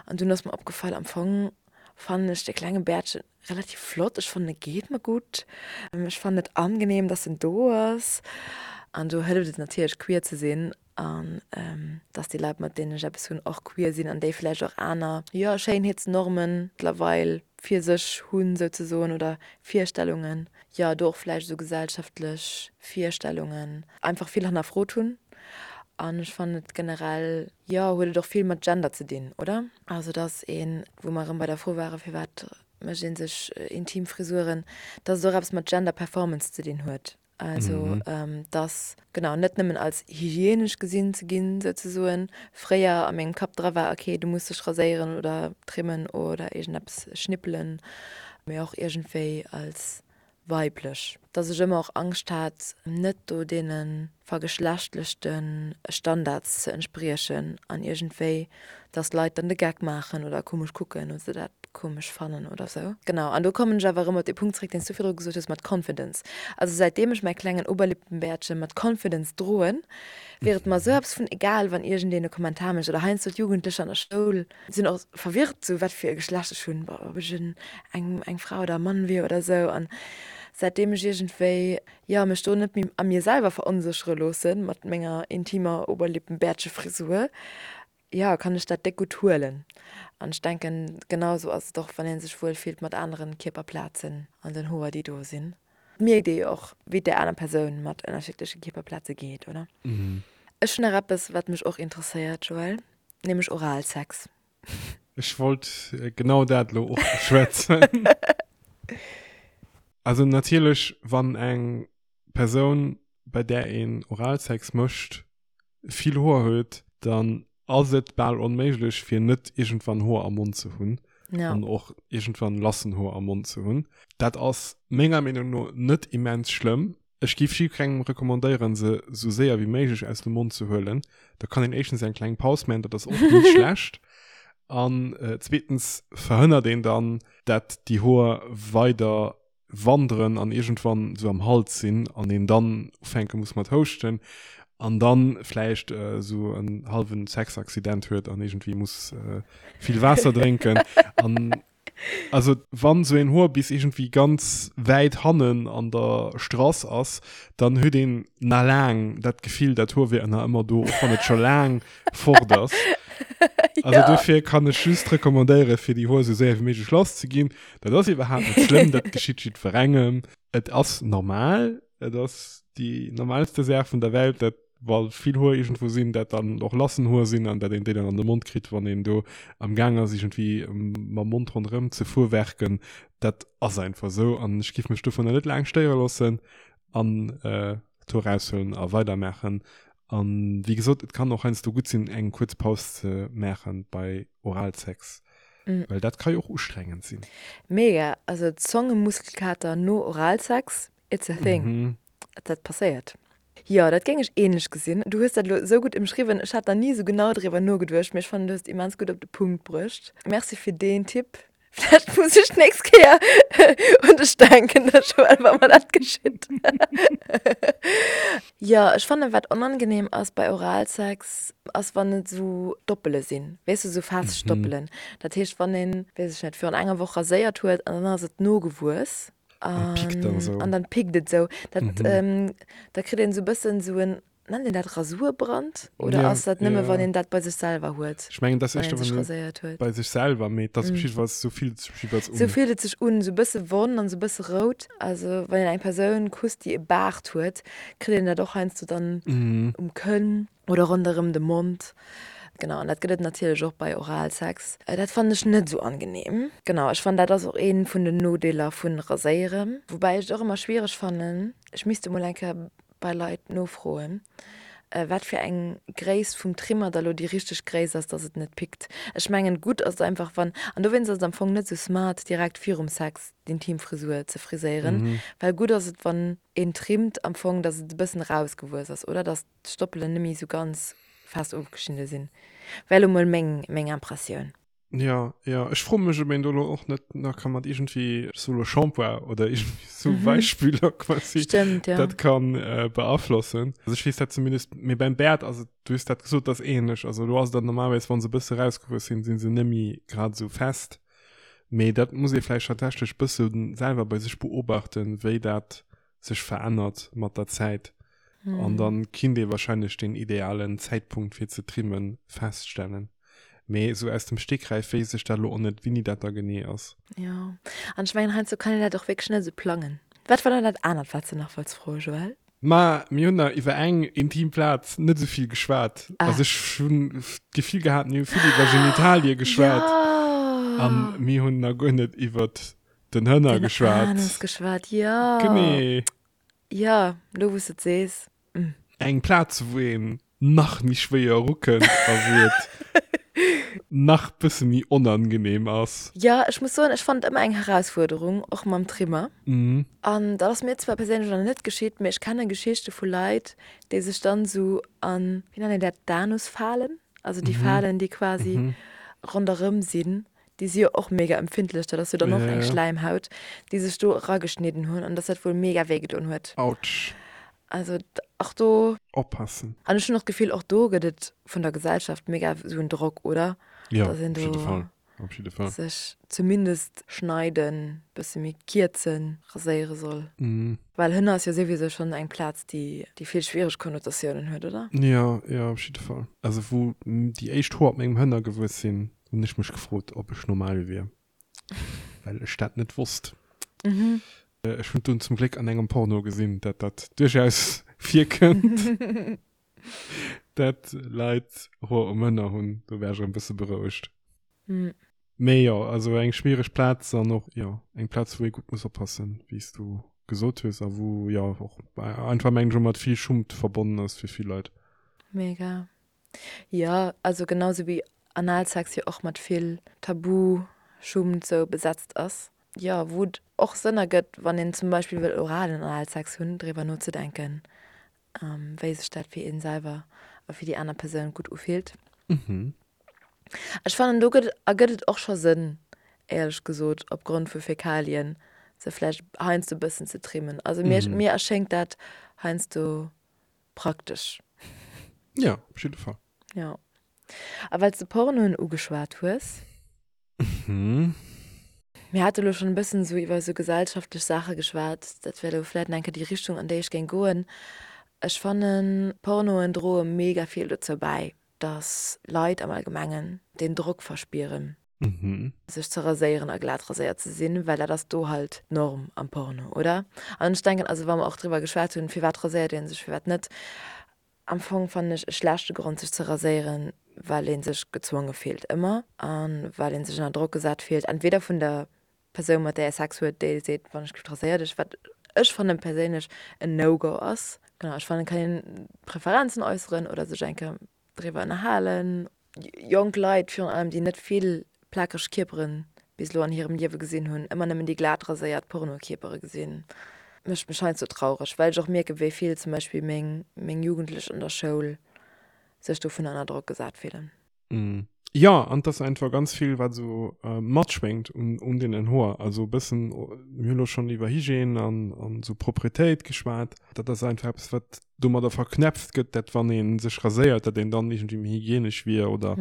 An dunn ass mer opgefall, am Fong fannen ech de klenge Bäertchen relativ flott, ech fannen e geet mer gutt, ech fannen et angenehm, dass en do ass. An do hëlleft et natierlech queer ze sinn an dass déi Leit mat deenen ech eppes hunn och queer sinn an déi vläicht och aner, jo, Schéinheetsnormen mëttlerweil fir sech hunn souzesoen oder Virstellungen, jo, do och vläicht esou gesellschaftlech Virstellungen einfach vill hannerfrot hunn. An ech fannen et generell, jo, huet et och vill mat Gender ze dinn, oder? Also dass een, wou mer erëm bei der Fro ware firwat mécht ee sech intim Frisuren, dass et och eppes mat Gender Performance ze dinn huet. Also dass, genau, net nëmmen als hygienesch gesinn ze ginn, souzesoen. Fréier a mengem Kapp dra war, okay, du muss dech raséieren oder trimmen oder iergendeppes schnippelen, mee och iergendwéi als weiblech. Dass ech ëmmer och Angscht hat, net do deene vergeschlechtlechte Standards ze entspriechen an iergendwéi, dass Leit dann de Geck maachen oder komesch kucken oder se dat komesch fannen oder sou. Genau, an do kommen ech awer erëm op dee Punkt zréck, deen s du virdru gesot hues mat Confidence. Also säitdeem ech mäi klengen Oberlippenbärtche mat Confidence droen, wier et mer sou eppes vun egal, wann iergendeen e Kommentar mécht oder heiansdo d'Jugendlecher an der Schoul sinn och verwirrt, sou wat fir e Geschlecht ech hunn, ob ech en eng eng Fra oder e Mann wier oder sou. An säitdeem ech iergendwéi, jo, mech do net méi a mir selwer veronséchere loosse mat menger intimer Oberlippenbärtchefrisur, jo, kann ech dat déck gutt huelen. An ech denken, genau sou ass et och, wann ee sech wuel fillt mat aneren Kierperplazen an den Hoer, déi do sinn. Et mierkt ee jo och, wéi et där aner Persoun mat ënnerschiddleche Kierperplaze geet, oder? Ech hunn nach eppes, wat mech och interesséiert, Joël, nämlech Oralsex. Ech wollt genau dat elo och beschwätzen. Also natierlech, wann eng Persoun, bei där een Oralsex mécht, vill Hoer huet, dann ass et bal onméiglech fir net iergendwann Hoer am Mond ze hunn ja. an och iergendwann lassen Hoer am Mond ze hunn. Dat ass menger Meenung no net immens schlëmm. Ech géif jiddwerengem recommandéieren, se sou séier wéi méiglech aus dem Mond ze huelen. Da kann een éischtens eng kleng Paus maachen, dat ass och ni schlecht. An äh, zweetens verhënnert een dann, dat déi Hoer weider wanderen an iergendwann sou am Hals sinn an een dann ufänke muss mat houschten an dann vläicht äh, sou en halwen Sexaccident huet an iergendwéi muss äh, vill Waasser drénken an also wann sou een Hoer bis iergendwéi ganz wäit hannen an der Strass ass, dann huet een na laang dat Gefill, dat Hoer wier ënner ëmmer do, och wann et scho laang fort ass. Also Ja. dofir kann ech just recommandéiere fir déi Hoer sou séier wéi méiglech lass ze ginn. Dat ass iwwerhaapt net schlëmm, dat geschitt jiddwerengem. Et ass normal, et ass déi normalste Saach vun der Welt, dat wa vill Hoer iergendwou sinn, dat dann och lassen Hoer sinn an dat een déi dann an de Mond kritt, wann een do am Gaang ass iergendwéi mam Mond ronderëm ze fuerwerken. Dat ass einfach esou an ech giff mech dovunner net laang stéiere loossen an äh, d'Hoer raushuelen a weidermaachen. An wéi gesot, et kann och heiansdo gutt sinn, eng kuerz Paus ze maachen bei Oralsex, Mm. well dat ka jo och ustrengend sinn. Mega, also Zongemuskelkater no Oralsex, it's a thing. Mhm. Dat passéiert. Jo, dat géing ech ähnlech gesinn. Du hues dat elo esou gutt ëmschriwwen. Ech hat nach ni esou genau driwwer nogeduecht, mee ech fannen, du hues et immens gutt op de Punkt bruecht. Merci fir deen Tipp. Vläicht muss ech d'nächst Kéier un dech denken, da Joël, wa mer dat geschitt. Jo, ech fannen, wat onangenehm ass bei Oralsex, ass wann et esou Doppele sinn, weess du, esou fest Stoppelen. Dat heescht, wann een, weess ech net, virun enger Woch raséiert huet an dann ass et nogewuess An pickt dann esou. an dann pickt et esou. Dat, da kritt een esou e bëssen esou en Nennt een dat Rasurbrand oder Ja, ass dat nëmme ja. wann een dat bei sech selwer huet? Ech mengen, dat ass Wann éischter, een sech wann een raséiert huet. bei sech selwer, mee et ass op jiddefalls, sou fillt et sech op jiddefalls un. Sou fillt et sech un, sou e bësse wonn an sou e bësse rout. Also wann een eng Persoun kusst, déi e Baart huet, kritt een dat och heiansdo dann um Kënn oder ronderëm de Mond. Genau, an dat gëtt et natierlech och bei Oralsex. Dat fannen ech net sou angenehm. Genau, ech fannen dat ass och ee vun den Nodeeler vun Raséieren. Woubäi ech et och ëmmer schwiereg fannen, ech misst emol eng Kéier bei Leit nofroen, wat fir eng Gréisst vum Trimmer da lo déi richteg Gréisst ass, dass et net pickt. Ech mengen, gutt ass et einfach wann, an dowéinst ass et am Fong net sou smart direkt virum Sex d'Intimfrisur ze friséieren, well gutt ass et wann een trimmt am Fong, dass et e bëssen erausgewuess ass, oder dass d'Stoppelen net méi sou ganz fest ofgeschnidde sinn. Wär lo mol meng meng Impressioun. Ja, ja, ech froe mech, ob een do lo och net nach ka mat iergendwéi, ech soe lo Shampoing oder iergendwéi sou Weichspüler quasi Stimmt, ja. dat kann äh, beaflossen. Also ech weess dat zumindest, mee beim Bäert ass et, du hues dat gesot, dat ass ähnlech. Also do ass et dann normalerweis, wa se e bësse rausgewuess sinn, si se net méi grad esou fest. Mee dat muss ee vläicht tatsächlech bësse selwer bei sech beobachten, wéi dat sech verännert mat der Zäit. An dann kinnt ee wahrscheinlech den idealen Zäitpunkt fir ze trimmen feststellen. Mee esou aus dem Stegreif wéisst ech dat elo och net, wéini dat da genee ass. Jo, an ech mengen heiansdo kann een dat och wierklech net esou plangen. Wat war dann dat anert, wat s de nach wollts froen, Joël? Ma mir hunn nach iwwer eng intim Plaz net esou vill geschwat. Also ech hunn d'Gefill gehat, mir hu vill iwwer Genitalie geschwat. An mir hunn nach guer net iwwer den Hënner geschwat. Den Anus geschwat, jo. Genee. Jo, lo wou s de et sees. Eng Plaz, wou een nach méi schwéier erukënnt a wou et nach bësse méi onangenehm ass. Jo, ech muss soen, ech fannen et ëmmer eng Herausfuerderung, och mam Trimmer. An dat ass mir zwar perséinlech nach net geschitt, mee ech kenne Geschichte vu Leit, déi sech dann esou an, wéi nennt een dat, d'Anusfalen, also déi Falen, déi quasi ronderëm sinn, déi si jo och mega empfindlech, dat ass jo dann och eng Schläimhaut, déi sech do erageschnidden hunn an dass dat wuel mega wéi gedoen huet. Autsch. Also och do. Oppassen. An ech hunn och d'Gefill, och do gëtt et vun der Gesellschaft mega esou en Drock, oder? Jo, op jidde Fall. Op jidde Fall. Sech zumindest schneiden, bësse méi kierzen, raséiere soll. Well Hënner ass jo souwisou schonn eng Plaz, déi déi vill schwiereg Konnotatiounen huet, oder? Jo, jo, op jidde Fall. Also wou déi éischt Hoer op mengem Hënner gewuess sinn, hunn ech mech gefrot, ob ech normal wier, well ech dat net wosst. Ech hunn dunn zum Gléck an engem Porno gesinn, dat dat duerchaus virkënnt, dat Leit Hoer um Hënner hunn. Do war ech erëm bësse berouegt. Mee jo, also eng schwiereg Plaz an och, jo, eng Plaz, wou ee gutt muss oppassen, wéi s du gesot hues, a wou, jo, och einfach, mengen ech, och mat vill Schummt verbonnen ass fir vill Leit. Mega. Jo, also genau sou wéi Analsex jo och mat vill Tabu, Schummt sou besetzt ass. Jo, wou et och Sënn ergëtt, wann een zum Beispill wëll oralen Analsex hunn, driwwer nozedenken, wéi sech dat fir een selwer a fir déi aner Persoun gutt ufillt. Ech fannen, do gëtt, ergëtt et och scho Sënn, éierlech gesot, opgrond vu Fäkalien se vläicht heiansdo e bëssen ze trimmen. Also mir, mir erschéngt dat heiansdo praktesch. Ja, op jidde Fall. Ja. A well s de Pornoen ugeschwat hues. Mhm. Mir hate lo schonn e bëssen esou iwwer esou gesellschaftlech Saache geschwat. Dat wär elo vläicht nach eng Kéier déi Richtung, an déi ech géing goen. Ech fannen, Pornoen droe mega vill dozou bäi, dass Leit am Allgemengen deen Drock verspieren. Sech ze raséieren a glat raséiert ze sinn, well dat ass do halt d'Norm am Porno, oder? An ech denken, also wa mer och driwwer geschwat hunn, firwat raséiert ee sech, firwat net, am Fong fannen ech e schlechte Grond sech ze raséieren, well ee sech gezwonge fillt ëmmer a well ee sech ënner Drock gesat fillt, entweder vun der Persoun mat där ee Sex huet, déi seet, wann ech giff raséier dech, wat ech fannen perséinlech en No-Go ass. Genau, ech fannen et kann een Preferenzen äusseren oder sech eng Kéier driwwer ënnerhalen. Jonk Leit virun allem, déi net vill plakeg Kierpere bis elo an hirem Liewe gesinn hunn, ëmmer nëmmen déi glat raséiert Pornokierpere gesinn, mécht mech heiansdo traureg, well ech och mierken, wéi vill zum Beispill meng meng Jugendlech an der Schoul sech dovun ënner Drock gesat fillen. Jo, an et ass einfach ganz vill, wat esou matschwéngt un un deenen Hoer. Also e bëssen, mir hu lo schonn iwwer Hygiène an an esou Propretéit geschwat, dat ass einfach eppes, wat domadder verknäpft gëtt, dat wann ee sech raséiert, dat een dann iergendwéi méi hygienesch wier oder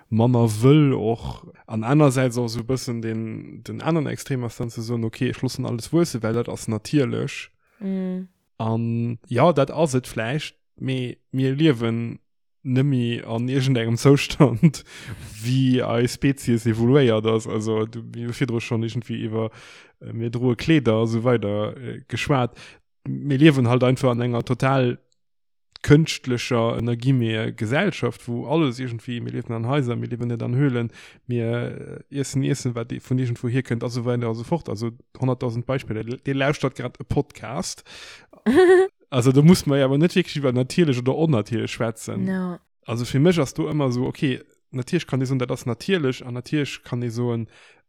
manner wëll och. An anersäits och esou e bëssen deen, den aneren Extrem ass dann ze soen, okay, ech loossen alles wuessen, well dat ass natierlech. An jo, dat ass et vläicht, mee mir liewen nëmme an iergendengem Zoustand, wéi eis Spezies evoluéiert ass. Also du, mir hu virdru schonn iergendwéi iwwer mir droe Kleeder a sou weider geschwat. Mir liewen halt einfach an enger total kënschtlecher, ënner Guillemete, Gesellschaft, wou alles iergendwéi, mir liewen an Haiser, mir liewen net an Höhlen, mir iessen Iessen, wat vun iergendwou hierkënnt a sou weider a sou fort. Also 100.000 Beispiller. Dir lauschtert grad e Podcast. Also do muss mer jo awer net wierklech iwwer natierlech oder onnatierlech schwätzen. No. Also fir mech ass do ëmmer esou, okay, natierlech kann ee soen, dat ass natierlech an natierlech kann ee soen,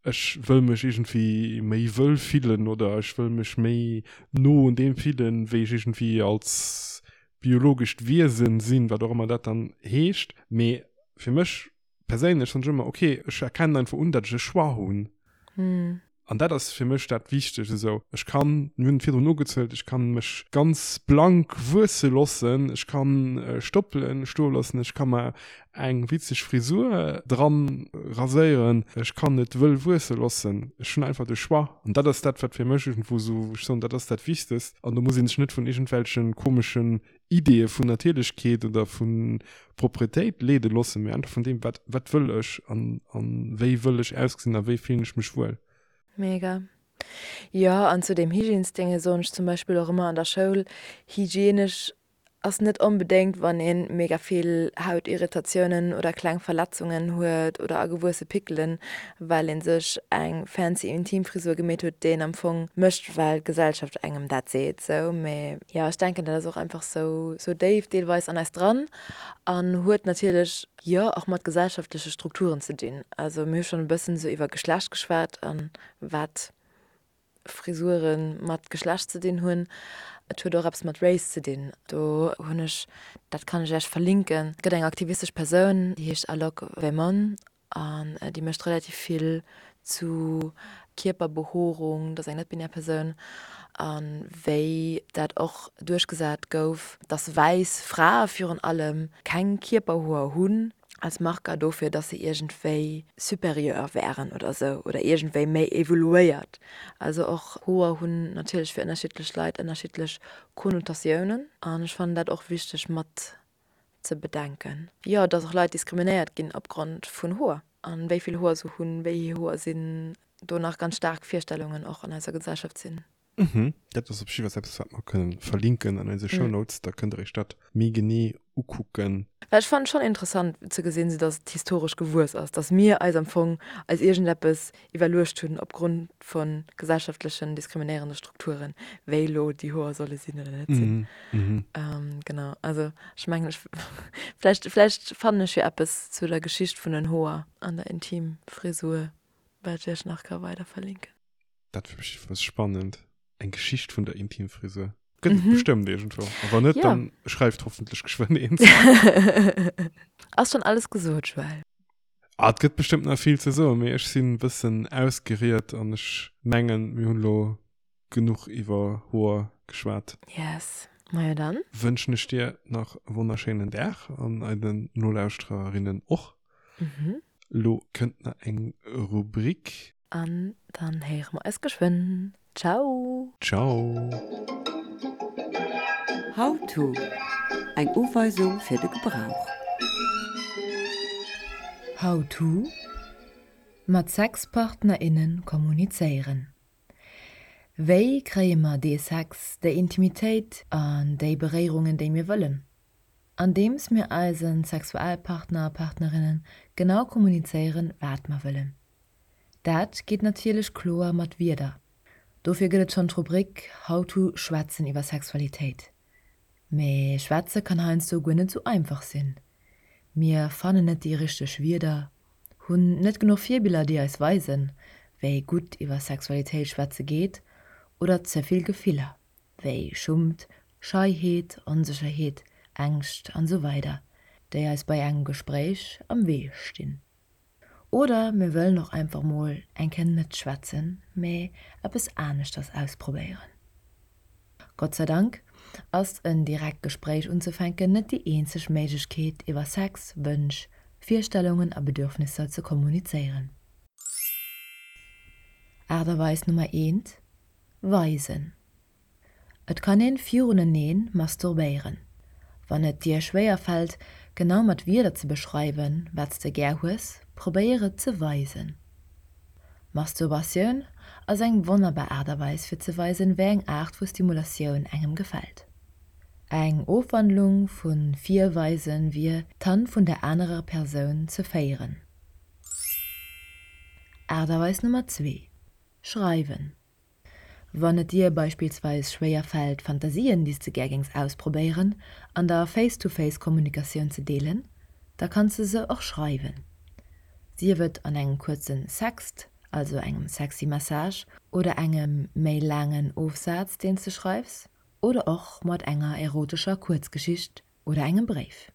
ech wëll mech iergendwéi méi wëll fillen oder ech wëll mech méi no un deem fillen, wéi ech iergendwéi als biologescht Wiesen sinn, wat och ëmmer dat dann heescht. Mee fir mech perséinlech soen ech ëmmer, okay, ech erkennen einfach un, datt ech e Choix hunn. An dat ass fir mech dat Wichtegt esou. Ech kann, mir hunn et virdrun ugezuelt, ech kann mech ganz blank wuesse loossen, ech kann Stoppelen stoe loossen, ech ka mer eng witzeg Frisur dran raséieren, ech kann et wëll wuesse loossen. Ech hunn einfach de Choix. An dat ass dat, wat fir mech iergendwou esou, wou ech soen, dat ass dat Wichtegst. An do muss ee sech net vun iergendwelche komeschen. Ideeë vun Natierlechkeet oder vu Propretéit leede loossen, mee einfach vun deem, wat, wat wëll ech an, an wéi wëll ech ausgesinn a wéi fillen ech mech wuel. Mega. Jo, an zu deem Hygiènesdénge soen ech zum Beispill och ëmmer an der Schoul, hygienesch ass net onbedéngt wann een mega vill Hautirritatiounen oder kleng Verletzungen huet oder agewuesse Pickelen, well een sech eng fancy Intimfrisur gemeet huet, déi een am Fong mécht well d'Gesellschaft engem dat seet sou. Mee jo, ech denken dat ass och einfach sou sou déif deelweis an eis dran an huet natierlech jo och mat gesellschaftleche Strukturen ze dinn. Also mir hu schonn e bëssen sou iwwer Geschlecht geschwat an wat Frisuren mat Geschlecht ze dinn hunn. Et huet och eppes mat Race ze dinn. Do hunn ech, dat kann ech Iech verlinken, et gëtt eng aktivistesch Persoun, déi heescht Alok Vemon an déi mécht relativ vill zu Kierperbehoerung, dat ass eng net-binär Persoun, a wéi dat och duerchgesat gouf, dass wäiss Frae virun allem keng Kierperhoer hunn. als Marker dofir, dass se iergendwéi supérieur wären oder sou oder iergendwéi méi evoluéiert. Also och Hoer hunn natierlech fir ënnerschiddlech Leit ënnerschiddlech Konnotatiounen an ech fannen dat och wichteg mat ze bedenken. Jo, dass och Leit diskriminéiert ginn opgrond vun Hoer an wéi vill Hoer se hunn, wéi hir Hoer sinn, do nach ganz staark Virstellungen och an eiser Gesellschaft sinn. Mhm, dat ass op jiddwer eppes, wat mer kënnen verlinken an eise Shownotes. Da kënnt der iech dat méi genee ukucken. Well ech fannen et schonn interessant ze gesinn, sou dass et historesch gewuess ass, dass mir eis am Fong eis iergendeppes iwwerluecht hunn opgrond vu gesellschaftlechen diskriminéierende Strukturen, wéi elo déi Hoer solle sinn oder net sinn. Genau, also ech mengen ech vläicht vläicht fannen ech jo eppes zu der Geschicht vun den Hoer an der Intimfrisur, wat ech iech nach ka weider verlinken. Dat fir mech was spannend. Eng Geschicht vun der Intimfrisur. Gëtt et mhm. bestëmmt irgendwo. A wann net, ja. dann schreift hoffentlich geschwënn eens. Ass schon alles gesot, Joël. Ah, et gëtt bestëmmt nach vill ze soen, mee ech sinn bëssen ausgeriet an ech mengen, mir hunn lo genuch iwwer Hoer geschwat. Yes. Majo dann. Wënschen ech dir nach e wonnerschéinen Dag an eiden Nolauschtererinnen och. Mhm. Lo kënnt nach eng Rubrik. An dann héiere mer eis geschwënn. Ciao! Ciao! How to, Eng Uweisung fir de Gebrauch. How to, Mat Sexpartner, innen kommunizéieren. Wéi kréie mer dee Sex, déi Intimitéit an déi Beréierungen, déi mir wëllen? Andeems mir eise Sexualpartner a Partnerinnen genau kommunizéieren, wat mer wëllen. Dat geet natierlech kloer mat Wierder. Dofir gëtt et schonn d'Rubrik How to Schwätzen iwwer Sexualitéit. Mee schwätze kann heiansdo guer net sou einfach sinn. Mir fannen net déi richteg Wierder, hunn net genuch Virbiller déi eis weisen, wéi gutt iwwer Sexualitéit schwätze geet oder ze vill Gefiller, wéi Schummt, Scheiheet, Onsécherheet, Ängscht an sou weider, déi eis bei engem Gespréich am Wee stinn. Oder mir wëllen och einfach mol eng Kéier net schwätzen, mee eppes aneschters ausprobéieren. Gott sei Dank ass en direkt Gespréich unzefänken net déi eenzeg Méiglechkeet iwwer Sex, Wënsch, Virstellungen a Bedürfnisser ze kommunizéieren. Aart a Weis Nummer eent, Weisen. Et kann een viruneneen masturbéieren. Wann et dir schwéier fällt, genau mat Wierder ze beschreiwen, wat s de gär hues, probéier et ze weisen. Masturbatioun ass eng wonnerbar Aart a Weis fir ze weisen, wéi eng Aart vu Stimulatioun engem gefält. Eng Ofwandlung vu virweisen wier, d'Hand vun der anerer Persoun ze féieren. Aart a Weis Nummer zwee, Schreiwen. Wann et dir beispillsweis schwéier fält, Fantasien, déi s de gär géings ausprobéieren, an der Face-to-Face-Kommunikatioun ze deelen, da kanns de se och schreiwen. Sief et an engem kuerzen Sext, also engem sexy Message, oder engem méi laangen Ofsaz, deen s de schreifs, oder och mat enger erotescher Kuerzgeschicht oder engem Bréif.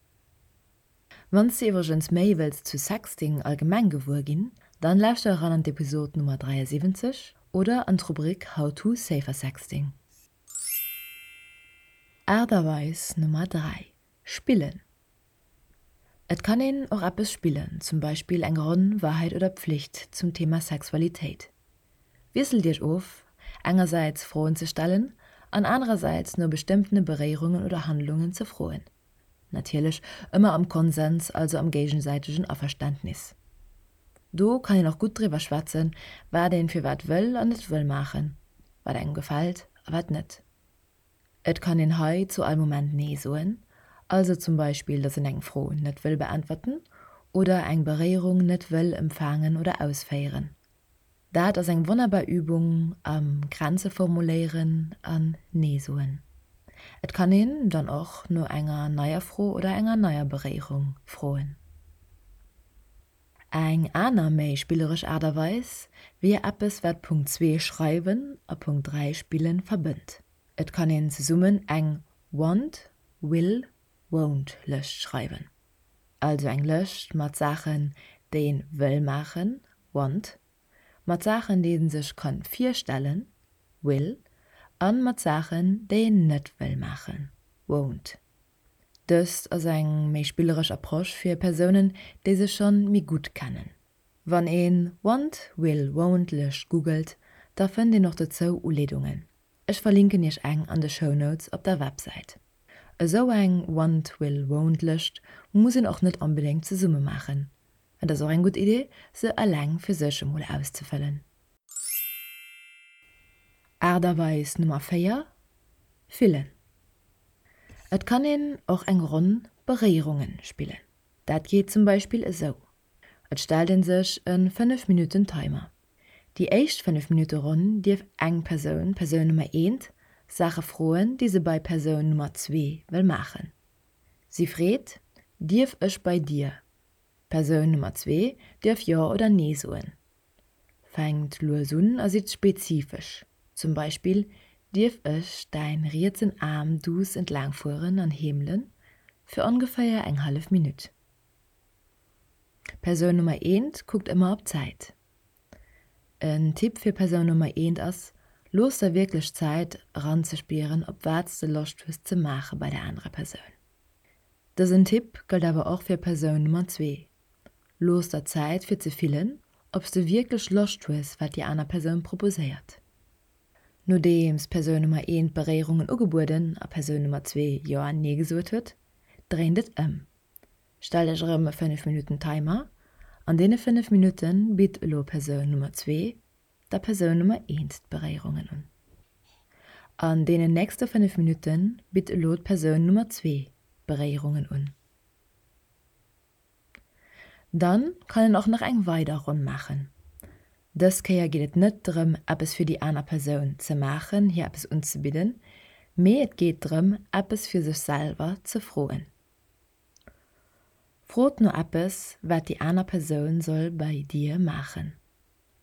Wann s de iwwregens méi wëlls zu Sexting allgemeng gewuer ginn, dann lauschter eran an d'Episod Nummer 73 oder an d'Rubrik How to Safer Sexting. Aart a Weis Nummer 3, Spillen. Et kann een och eppes spillen, zum Beispill eng Ronn Wahrheit oder Pflicht zum Thema Sexualitéit. Wiesselt iech of, engersäits Froen ze stellen. An anerersäits no bestëmmtene Beréierungen oder Handlungen ze froen. Natierlech ëmmer am Konsens, also am géigesäitegen Averständnis. Do kann een och gutt driwwer schwätzen, wat een firwat wëll an net wëll maachen, wat engem gefält a wat net. Et kann een hei zu all Moment Nee soen, also zum Beispill, dass een eng Fro net wëll beäntwerten oder eng Beréierung net wëll empfaangen oder ausféieren. Dat ass eng wonnerbar Übung am Grenze formuléieren an Nee soen. Et kann een dann och no enger neier Fro oder enger neier Beréierung froen. Eng aner méi spilleresch Aart a Weis wier eppes wat Punkt 2 schreiwen a Punkt 3 spillen verbënnt. Et kann een zesummen eng Want, Will, Won't Lëscht schreiwen. Also eng Lëscht mat Saachen déi een wëll maachen, Want, mat Saachen déi een sech kann virstellen, Will, an mat Saachen déi een net wëll maachen, Won't. Dëst ass eng méi spilleresch Approche fir Persounen, déi sech schonn méi gutt kennen. Wann een Want, Will, Won't Lëscht googelt, da fënnt een och dozou Uleedungen. Ech verlinken iech eng an de Shownotes op der Websäit. Esou eng Want, Will, Won't Lëscht muss een och net onbedéngt zesumme maachen. Et ass och eng gutt Idee, se eleng fir sech emol auszefëllen. Aart a Weis Nummer 4, Fillen. Et kann een och eng Ronn Beréierungen spillen. Dat geet zum Beispill esou, Et stellt een sech e 5 Minutten Timer. Déi éischt 5 Minutte Ronn dierf eng Persoun, Persoun Nummer eent, Saache froen, déi se bei Persoun Nummer zwee wëll maachen. Si freet, Dierf ech bei dir? Persoun Nummer zwee dierf Jo oder Nee soen. Fänkt lues un a sidd spezifesch, zum Beispill, Dierf ech däin rietsen Aarm duuss entlaang fueren an heemelen fir ongeféier eng hallef Minutt? Persoun Nummer eent kuckt ëmmer op d'Zäit. En Tipp fir Persoun Nummer eent ass, Looss der wierklech Zäit eranzespieren op wat s de Loscht hues ze maache bei der anerer Persoun. Dësen Tipp gëllt awer och fir Persoun Nummer zwee, Looss der Zäit fir ze fillen, ob s de wierklech Loscht hues wat déi aner Persoun proposéiert. Nodeems Persoun Nummer eent Beréierungen ugebueden a Persoun Nummer zwee Jo an Nee gesot huet, dréint et ëm. Stellt Iech erëm e 5 Minutten Timer. An deene 5 Minutte bitt elo Persoun Nummer zwee der Persoun Nummer eent d'Beréierungen un. An deenen nächste 5 Minutte bitt elo d'Persoun Nummer zwee d'Beréierungen un. Dann kann een och nach eng weider Ronn maachen. Dës Kéier geet et net drëm eppes fir déi aner Persoun ze maachen, hir eppes unzebidden, mee et geet drëm eppes fir sech selwer ze froen. Frot no eppes wat déi aner Persoun soll bei dir maachen.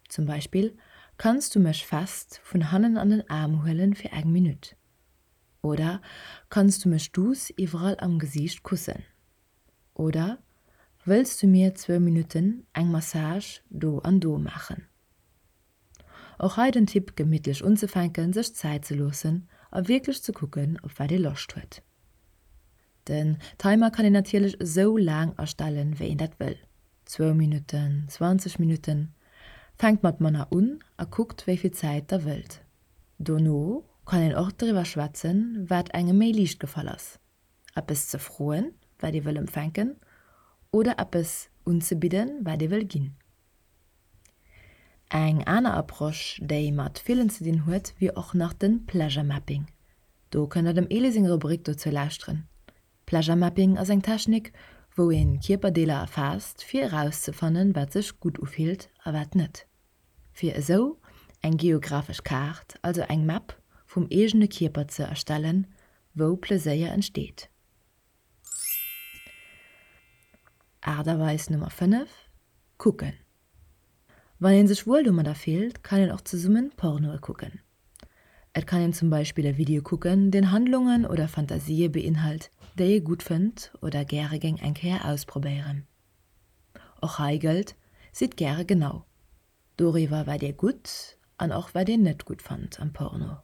Zum Beispill, Kanns du mech fest vun hannen an den Aarm huelen fir eng Minutt? Oder Kanns du mech duuss iwwerall am Gesiicht kussen? Oder wëlls du mir zwou Minutten eng Massage do an do maachen? Och hei den Tipp gemittlech unzefänken, sech Zäit ze loossen a wierklech ze kucken op wat ee Loscht huet. Den Timer kann een natierlech esou laang astellen wéi een dat wëll, zwou Minutten, 20 Minutten. Fänkt mat manner un a kuckt wéi vill Zäit der wëllt. Dono kann een och driwwer schwätzen wat engem méi liicht gefall ass. Eppes ze froen, wat ee wëll empfänken, oder eppes unzebidden, wat ee wëll ginn. Eng aner Approche, déi mat Fillen ze dinn huet, wier och nach de Pleasure Mapping. Do kënnt der dem Elie seng Rubrik dozou lauschteren. Pleasure Mapping ass eng Technik, wou een Kierperdeeler erfaasst, fir erauszefannen, wat sech gutt ufillt a wat net. Fir esou eng geographesch Kaart, also eng Map vum eegene Kierper ze erstellen, wou Pleséier entsteet. Aart a Weis Nummer 5, Kucken. Wann een sech wuel domadder fillt, kann een och zesummen Pornoe kucken. Et kann een zum Beispill e Video kucken, deen Handlungen oder Fantasië beinhalt, déi ee gutt fënnt oder gäre géing eng Kéier ausprobéieren. Och hei gëllt, Sidd gäre genau doriwwer wat dir gutt an och wat dir net gutt fannt am Porno.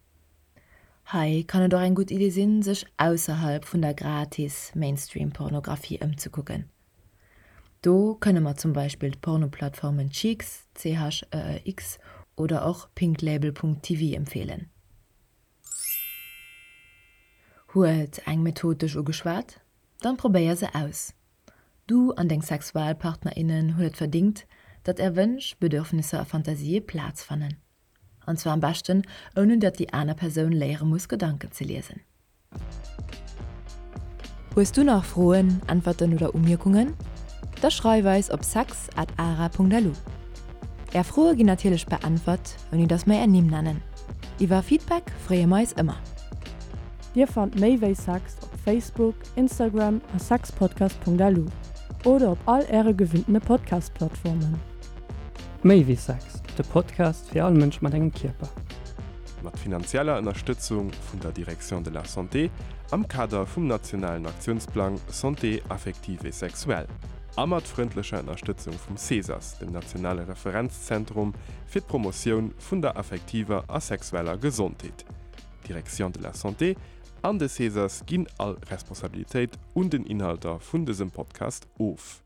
Hei kann et och eng gutt Idee sinn, sech ausserhalb vun der gratis Mainstream-Pornografie ëmzekucken. Do kënne mer zum Beispill d'Pornoplattformen Cheex, CHEEX, oder och pinklabel.tv empfeelen. Huet eng Method dech ugeschwat? Dann probéier se aus. Du an deng Sexualpartnerinnen hunn et verdingt, datt är Wënsch, Bedürfnisser a Fantasië Plaz fannen. An zwar am beschten ouni datt déi aner Persoun léiere muss Gedanken ze liesen. Hues du nach Froen, Äntwerten oder Umierkungen? Da schreif eis op sex at ara.lu. Är Froe ginn natierlech beäntwert, ouni datt mer är Nimm nennen. Iwwer Feedback freeë mer eis ëmmer. Dir fannt méi wéi Sex op Facebook, Instagram a sexpodcast.lu oder op all äre gewinntene Podcast-Plattformen. Méi wéi Sex, de Podcast fir all Mënsch mat engem Kierper. Mat finanzieller Ënnerstëtzung vun der Direction de la Santé am Kader vum nationalen Aktiounsplang Santé affective et sexuelle a mat frëndlecher Ënnerstëtzung vum CESAS, dem nationale Referenzzentrum fir d'Promotioun vun der affektiver a sexueller Gesondheet. D'Direction de la Santé an de CESAS ginn all Responsabilitéit un den Inhalter vun dësem Podcast of.